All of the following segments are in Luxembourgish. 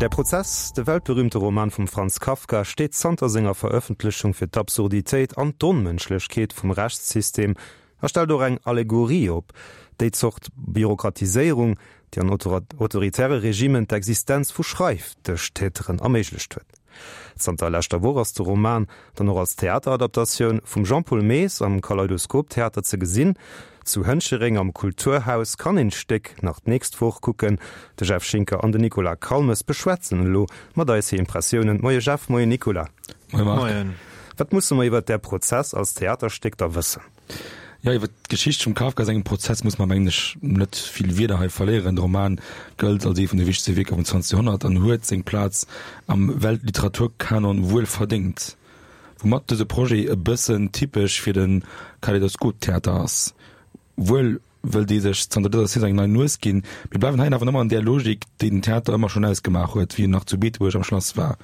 Der Prozess, de weltberühmte Roman vum Franz Kafka, steet zanter senger Verëffentlechung fir d'Absurditéit an d'Onmënschlechkeet vum Rechtssystem a stellt och eng Allegorie op déi Zort Bürokratiséierung, déi an autoritäre Regimen d'Existenz vu Schreifdëschtäteren erméiglecht huet. Zanter leschter Woch ass de Roman dann och als Theateradaptatioun vum Jean-Paul Maes am Kaleidoskop Theater ze gesinn. Zu Hënchereng am Kulturhaus kann een d'Stéck nach d'nächst Woch kucken. De Jeff Schinker an den Nicolas Calmes beschwätzen elo mat eis hir Impressiounen. Moie Jeff, moie Nicolas. Moie Marc. Moien. Wat musse mer iwwert Där Prozess als Theaterstéck da wëssen? Jo, iwwer d'Geschicht vum Kafka sengem Prozess muss mer, mengen ech, net vill Wierder hei verléieren. De Roman gëllt als ee vun de wichtegste Wierker vum 20. Joerhonnert an huet seng Plaz am Weltliteraturkanon wuel verdéngt. Woumat dëse Projet e bëssen typesch fir de Kaleidoskop-Theater ass. Wuel wëll dee sech zanter dëser Saison eng nei Nues ginn, mir bleiwen hei awer ëmmer an där Logik, déi den Theater ëmmer schonn ausgemaach huet, wéi en nach zu Beetebuerg am Schlass war.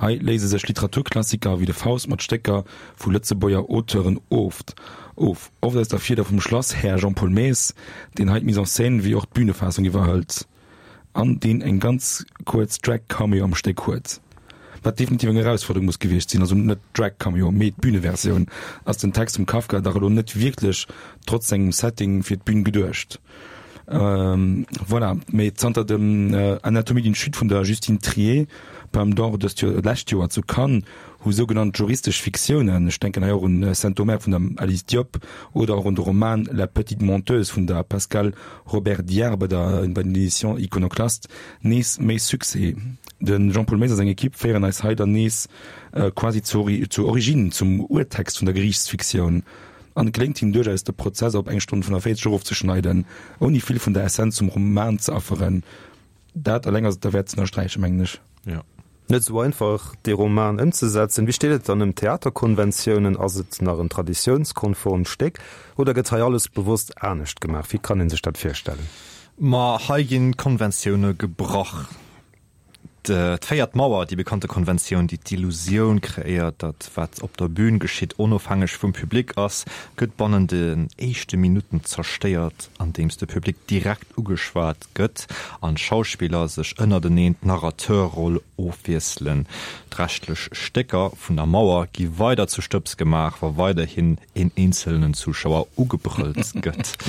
Hei léise sech Literaturklassiker wéi de Faust mat Stécker vu Lëtzebuerger Auteuren oft of, oft aus der Fieder vum Schlasshär Jean-Paul Maes, deen hei d'Mise en scène wéi och d'Bühnefaassung iwwerhëlt an deen eng ganz kuerz Drag-Cameo am Stéck huet, wat definitiv eng Erausfuerderung muss gewiescht sinn. Also net d'Drag-Cameo, mee d'Bühneversioun. Ass den Text vum Kafka dach elo net wierklech, trotz sengem Setting, fir d'Bühn geduecht. Voilà, mee zanter dem Anatomie d'une chute vun der Justine Triet, Palme d'Or dëst Joer, d'lescht Joer zu Cannes, hu sougenannt juristesch Fiktiounen, ech denken hei och un Saint-Omer vun der Alice Diop oder och un de Roman La petite menteuse vun der Pascale Robert-Diard bei der bei den Editions Iconoclast, nees méi Succès. De Jean-Paul Maes a seng Equipe féieren eis hei dann nees quasi zur zur Origine, zum Urtext vun der Geriichtsfiktioun. An et geléngt him duerchaus, de Prozess op eng Stonn 45 erofzeschneiden, ouni vill vun der Essenz vum Roman ze afferen. Dat eleng ass et derwäert ze ënnersträichen, mengen ech. Jo. Net esou einfach, dee Roman ëmzesetzen. Wéi steet et dann ëm d'Theaterkonventiounen? Ass et nach en traditiounskonformt Stéck oder gëtt hei alles bewosst anescht gemaach? Wéi kann ee sech dat virstellen? Ma hei ginn d'Konventioune gebrach. D'véiert Mauer, déi bekannte Konventioun, déi d'Illusioun kreéiert, datt wat op der Bün geschitt onofhängeg vum Public ass, gëtt bannen den éischte Minutten zerstéiert, andeems de Public direkt ugeschwat gëtt an d'Schauspiller sech ënnerteneen d'Narrateurroll ofwiesselen. D'reschtlech Stécker vun der Mauer gi weider zu Stëbs gemaach, wa weiderhin een eenzelnen Zuschauer ugebrëllt gëtt.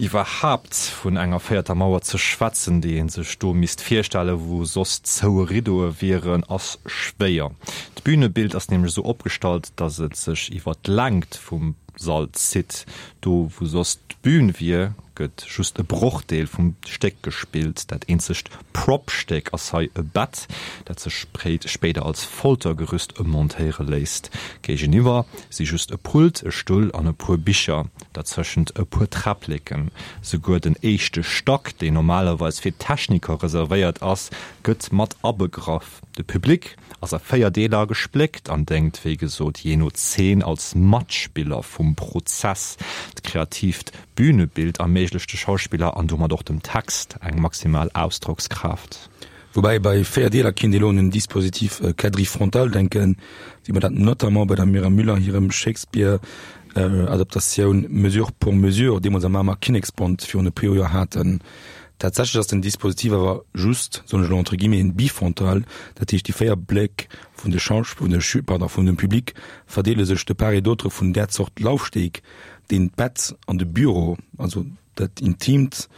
Iwwerhaapt vun enger véierter Mauer ze schwätzen, déi ee sech do misst virstellen, wou soss zoue Riddoe wieren, ass schwéier. D'Bünebild ass nämlech esou opgestallt, datt et sech iwwer d'Längt vum Sall zitt. Do wou soss d'Bün wier, gëtt just e Brochdeel vum Stéck gespillt. Dat eenzegt Prop-Stéck ass hei e Bett, dat sech spéider als Foltergerüst ëmmontéiere léisst. Géigeniwwer si just e Pult, e Stull an e puer Bicher, derzëschent e puer Träppleken. Souguer den éischte Stack, deen normalerweis fir d'Techniker reservéiert ass, gëtt mat abegraff. De Public ass a 4 Deeler gespléckt an déngt, wéi gesot, jee no Zeen als Matspiller vum Prozess. D'kreatiivt Bünebild erméiglecht de Schauspiller an domat och dem Text eng maximal Ausdrockskraaft. Woubäi bei 4 Deeler kinnt ee lo un en Dispositif quadrifrontal denken, wéi mer dat notamment bei der Myriam Müller hirem Shakespeare-Adaptatioun Mesure pour mesure deemools am Mamer Kinneksbond virun e puer Joer haten. Tatsächlech ass den Dispositif awer just, soen ech elo entre guillemets, en bifrontal, dat heescht déi 4 Bléck vun de Schausch-, vun de Schü-, pardon, vun dem Public verdeele sech de part et d'autre vun där Zort Laufsteg, deen d'Bett an de Büro, also dat Intimt,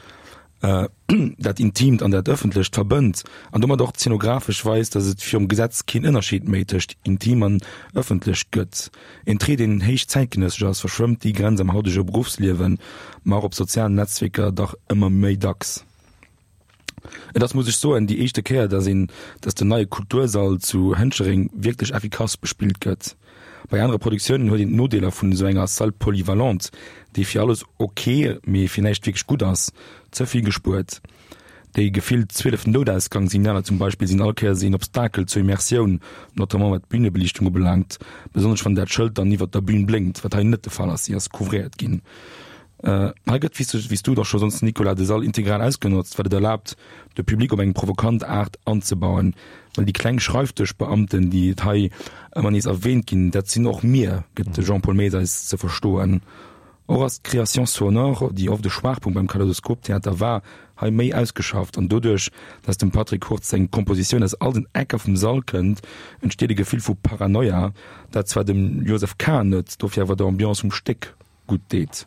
dat Intimt an dat Ëffentlecht verbënnt an domat och zeenografesch weist, datt et virum Gesetz keen Ënnerscheed méi tëscht intim an ëffentlech gëtt. Een Trait, deen héich zäitgenëssesch ass, verschwëmmt déi Grenz am hautege Beruffsliewen, ma och op sozialen Netzwierker dach ëmmer méi dacks. Et ass, muss ech soen, déi éischte Kéier, dass een, dass den neie Kultursall zu Hënchereng wierklech effikass bespillt gëtt. Bei anere Produktiounen huet een d'Nodeeler vun esou enger Salle polyvalente, déi fir alles ok, mee fir näischt wierklech gutt ass, ze vill gespuert. Déi gefillt 12 Noutausgangssignaler zum Beispill sinn all Kéiers een Obstakel zur Immersioun, notamment wat d'Bünebeliichtung ubelaangt, besonnesch wann dat Schëld dann iwwert der Bün blénkt, wat hei net de Fall ass, si ass couvréiert ginn. Hei gëtt, wéi s du et och scho soss, Nicolas, de Sall integral ausgenotzt, wat et erlaabt, de Public op eng provokant Aart anzebauen. Well déi kleng Schreifdëschbeamten, déi et hei ëmmer nees erwäänt ginn, dat sinn och mir, gëtt de Jean-Paul Maes eis ze verstoen. Och ass d'Création sonore, déi oft e Schwaachpunkt beim Kaleidoskop-Theater war, hei méi ausgeschafft an doduerch, dass dem Patrick Hurtz seng Kompositioun aus all den Ecker vum Sall kënnt, entsteet e Gefill vu Paranoia, dat zwar dem Joseph Kahn net, dofir awer der Ambiance vum Stéck gutt deet.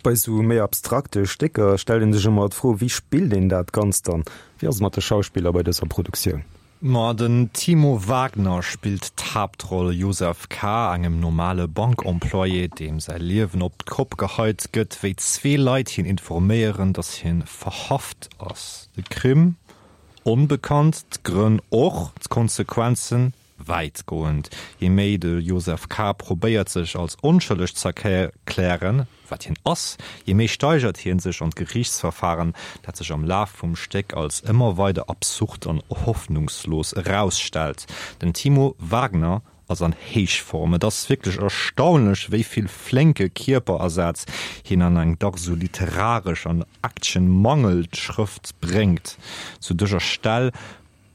Bei sou méi abstrakte Stécker stellt een sech ëmmer d'Fro, wéi spillt een dat Ganzt dann? Wéi ass et mat de Schauspiller bei dëser Produktioun? Ma den Timo Wagner spillt d'Haaptroll Josef K., engem normale Bankemployé, deem säi Liewen op d'Kopp geheit gëtt, wéi zwee Leit hien informéieren, datt hien verhaft ass. De Crime onbekannt, d'Grënn och, d'Konsequenzen wäitgoend. Je méi de Josef K. probéiert sech als onschëlleg z'erklären, wat hien ass, je méi steigert hien sech an d'Geriichtsverfahren, dat sech am Laf vum Stéck als ëmmer weider absurd an hoffnungslos erausstellt. Den Timo Wagner ass an Héichform. Et ass wierklech erstaunlech, wéi vill flénke Kierperasaz hien an eng dach sou literaresch an actionmangelt Schrëft bréngt. Zu dëser Stell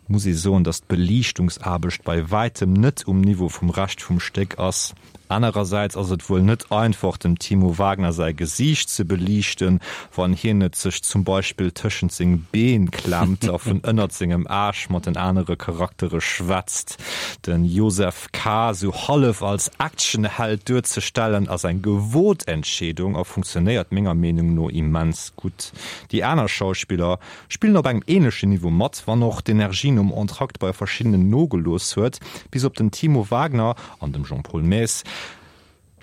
muss ee soen, datt d'Beliichtungsaarbecht bei wäitem net um Niveau vum Rescht vum Stéck ass. Anerersäits ass et wuel net einfach, dem Timo Wagner säi Gesiicht ze beliichten, wann hien et sech zum Beispill tëschent seng Been klemmt a vun ënnert sengem Aarsch mat den anere Charaktere schwätzt. De Josef K. sou hallef als Actionheld duerzestellen, ass eng gewot Entscheedung a funktionéiert menger Meenung no immens gutt. Déi aner Schauspiller Spillen op engem ähnlechen Niveau mat, wann och d'Energie nom Entracte bei verschiddenen nogelooss huet. Bis op den Timo Wagner an dem Jean-Paul Maes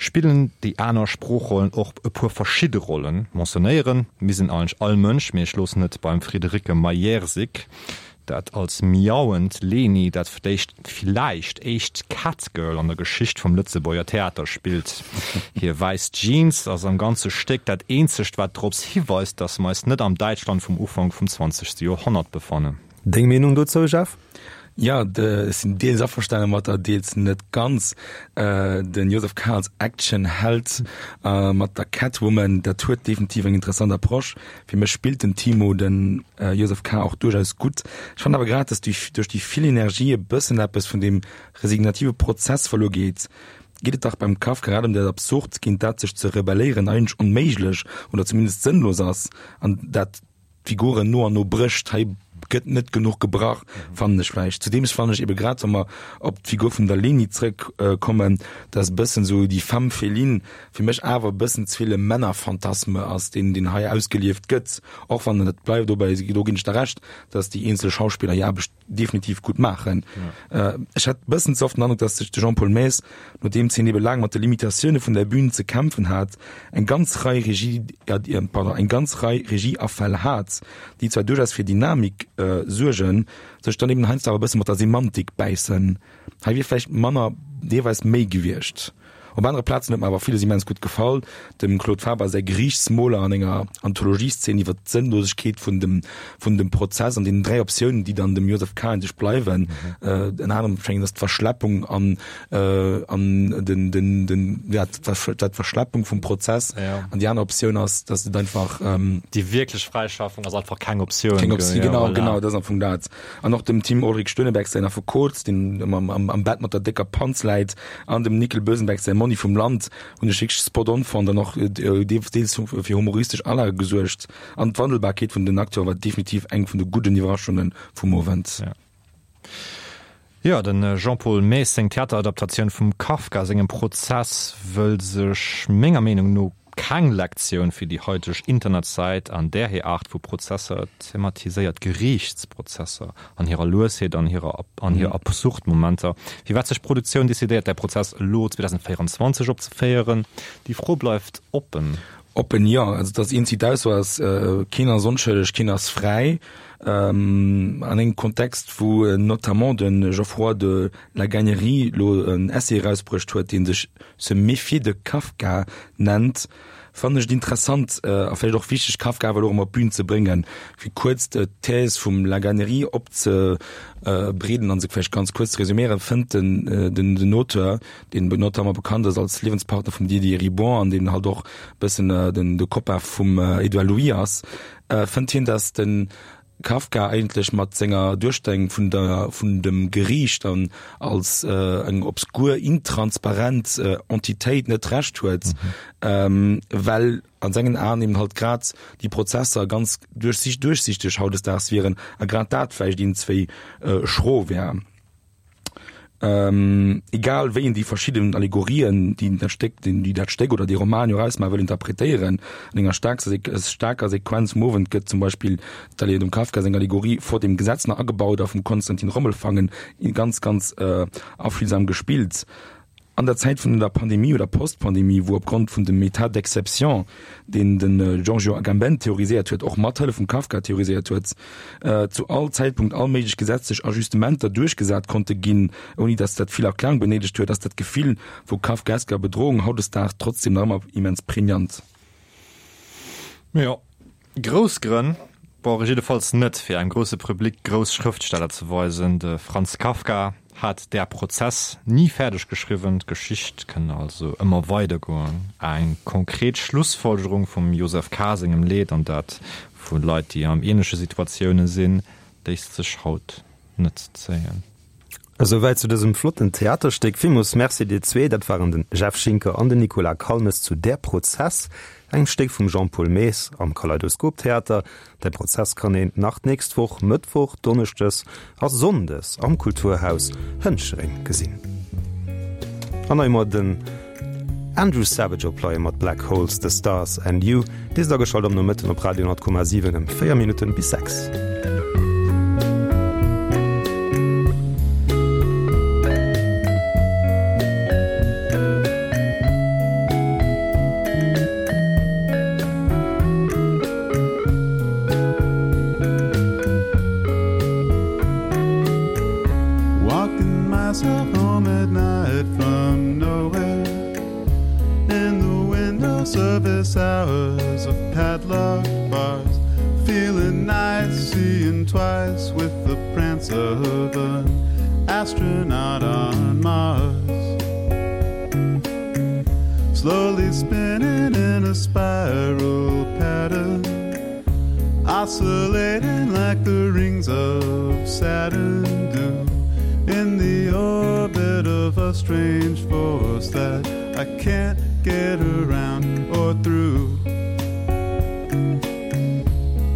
spillen déi aner Sproochrollen och e puer verschidde Rollen. Mentionnéieren misst een eigentlech all Mënsch, mee ech loossen et beim Friederike Majerczyk, dat als miauend Leni dat vléicht villäicht éischt Catgirl an der Geschicht vum Lëtzebuerger Theater spillt. Hir wäiss Jeans ass am ganze Stéck dat eenzegt, wat drops hiweist, dass mer eis net am Däitschland vum Ufank vum zwanzegste Joerhonnert befannen. Deng Meenung dozou, Jeff? Jo, ech sinn deels averstane mat der, deels net ganz. Den Joseph K. Als Actionheld mat der Catwoman, dat huet definitiv eng interessant Approche. Fir mech spillt den Timo den Joseph K. och duerchaus gutt. Ech fannen awer grad, dass duerch déi vill Energie e bëssen eppes vun deem resignative Prozess verluer geet. Geet et dach beim Kafka grad ëm dat Absurd, géint dat sech ze rebelléieren eigentlech onméiglech oder zumindest sënnlos ass an dat d'Figuren no an no brécht. Hei gëtt net genuch gebrach, fannen ech vläicht. Zudeem fannen ech ebe grad, wa mer op d'Figur vun der Leni zrëck kommen, dass e bëssen esou déi Femme féline fir mech awer e bëssen ze vill e Männerphantasme ass, deen, deen hei ausgelieft gëtt, och wann, et bleift dobäi, do ginn ech der Recht, dass déi eenzel Schauspiller hir Aarbecht definitiv gutt maachen. Ech hat e bëssen ze oft den Androck, dass sech de Jean-Paul Maes, nodeems hien ebe laang mat de Limitatioune vun der Bühn ze kämpfen hat, eng ganz Rei Regie, pardon, eng ganz Rei Regieafäll hat, déi zwar duerchaus fir Dynamik suergen, sech dann eben heiansdo awer e bësse mat der Semantik bäissen. Hei wier vläicht manner deelweis méi gewiescht. Op anere Plazen huet mer awer villes immens gutt gefall, dem Claude Faber säi Geriichtsmoler an enger Anthologieszeen iwwer d'Sënnlosegkeet vun dem vun dem Prozess an deenen 3 Optiounen, déi dann dem Joseph K. sech bleiwen. Ënner anerem schéngt ass d'Verschleppung an an den den den ja d'Verschleppung vum Prozess an déi aner Optioun ass, datt et einfach Déi wierklech Fräischaffung ass einfach keng Optioun. Keng Optioun, genau, genau, dat ass am Fong dat. An och dem Tim Ulrich Stöneberg säin Affekot, deen ëmmer am, am Bett mat der décker Panz läit, an dem Nickel Bösenberg säi Monni vum Land hunn ech wierklech spot on fonnt an och deels fir humoristesch Alage gesuergt. An d'Wandelbarkeet vun den Acteure war definitiv eng vun de gudden Iwwerraschunge vum Owend. Jo, de Jean-Paul Maes seng Theateradaptatioun vum Kafka sengem Prozess wëll sech menger Meenung no keng Lektioun fir déi haiteg Internetzäit an där hir Aart vu Prozesser thematiséiert, Geriichtsprozesser an hirer Luesheet an hirer an hir absurd Momenter. Firwat sech d'Produktioun decidéiert, däi Prozess elo 2024 opzeféieren, déi Fro bleift oppen. Oppen, jo. Also, dass een zit aus ass, keen ass onschëlleg, keen ass fräi. An engem Kontext, wou notamment de Geoffroy de la Gagnerie elo en Essai erausbruecht huet, dee sech Se méfier de Kafka nennt, fannen ech et interessant a vläicht och wichteg, Kafka awer elo erëm op d'Bün ze bréngen. Fir kuerz d'Thèse vum La Gagnerie opzebreeden a se vläicht ganz kuerz ze resuméieren, fënnt den den Auteur, deen notamment bekannt ass als Liewenspartner vum Didier Eribon an deen halt och e bëssen den de Copain vum Edouard Louis ass, fënnt hien, datt de. Kafka eigentlech mat senger Duerstellung vun der, vun dem Geriicht an als eng obskur, intransparent Entitéit net Recht huet, well an sengen Aen eben halt grad déi Prozesser ganz duerchsichteg hautdesdaags wieren a grad dat vläicht iergendzwéi schro wär. Egal wéi een déi verschidden Allegorien, déi dat Stéck, déi dat Stéck oder dee Roman jo ausmaachen, wëll interpretéieren, an enger staarker Sequenz vum Owend gëtt zum Beispill dem Kafka seng Allegorie vor dem Gesetz nach agebaut a vum Konstantin Rommelfangen ganz, ganz affühlsam gespillt. An der Zäit vun der Pandemie oder Post-Pandemie, wou opgrond vun dem État d'exception, deen de Giorgio Agamben theoriséiert huet, och mat Hëllef vum Kafka theoriséiert huet, zu all Zäitpunkt all méiglech gesetzlech Ajustementer duerchgesat konnte ginn, ouni datt dat vill Erklärung benéidegt huet, ass dat Gefill vu kafkaesker Bedrohung hautdesdaags trotzdem nach ëmmer immens pregnant. Jo, Grouss Grënn brauch ech jiddefalls net, fir engem grousse Public grouss Schrëftsteller ze weisen. De Franz Kafka hat Der Prozess ni fäerdeg geschriwwen, d'Geschicht kënn also ëmmer weidergoen. Eng konkret Schlussfolgerung vum Josef K. sengem Leed, an dat vu Leit, déi an ähnleche Situatioune sinn, léisst sech haut net zéien. Esouwäit zu dësem flotten Theaterstéck. Villmools Merci dir zwee. Dat waren den Jeff Schinker an den Nicolas Calmes zu Der Prozess, engem Stéck vum Jean-Paul Maes am Kaleidoskop Theater. Der Prozess kann een nach d'nächst Woch Mëttwoch, Donneschdes a Sonndes am Kulturhaus Hënchereng gesinn. An hei mol den Andrew Savage op Leie mat Black Holes, The Stars and You. Dir sidd ageschalt am Nomëtten op Radio 10,7 ëm 4 Minutten bis 6. Walking myself home at night from nowhere In the window service hours of padlocked bars Feeling nice, seeing twice with the prance of an astronaut on Mars Slowly spinning in a spiral pattern Oscillating like the rings of Saturn do In the orbit of a strange force that I can't get around or through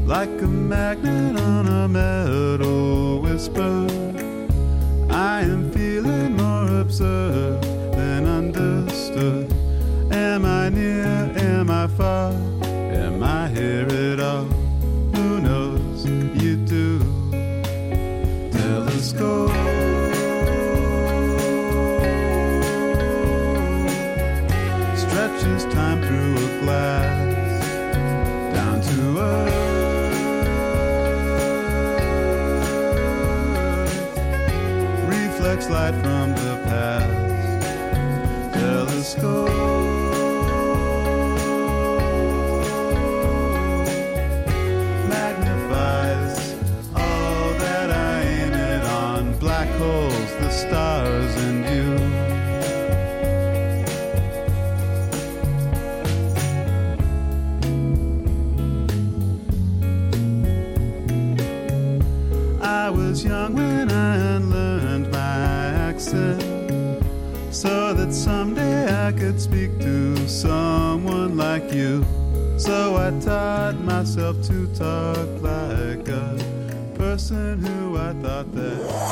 Like a magnet on a metal whisper I am feeling more observed than understood Am I near, am I far, am I here at all? Who knows, you do Telescope Stretches time through a glass Down to earth Reflects light from the past Telescope Magnifies all that I aim it on Black holes, the stars and you I was young when I learned my accent So that someday I could speak to someone like you So I taught myself to talk like a person who I thought that.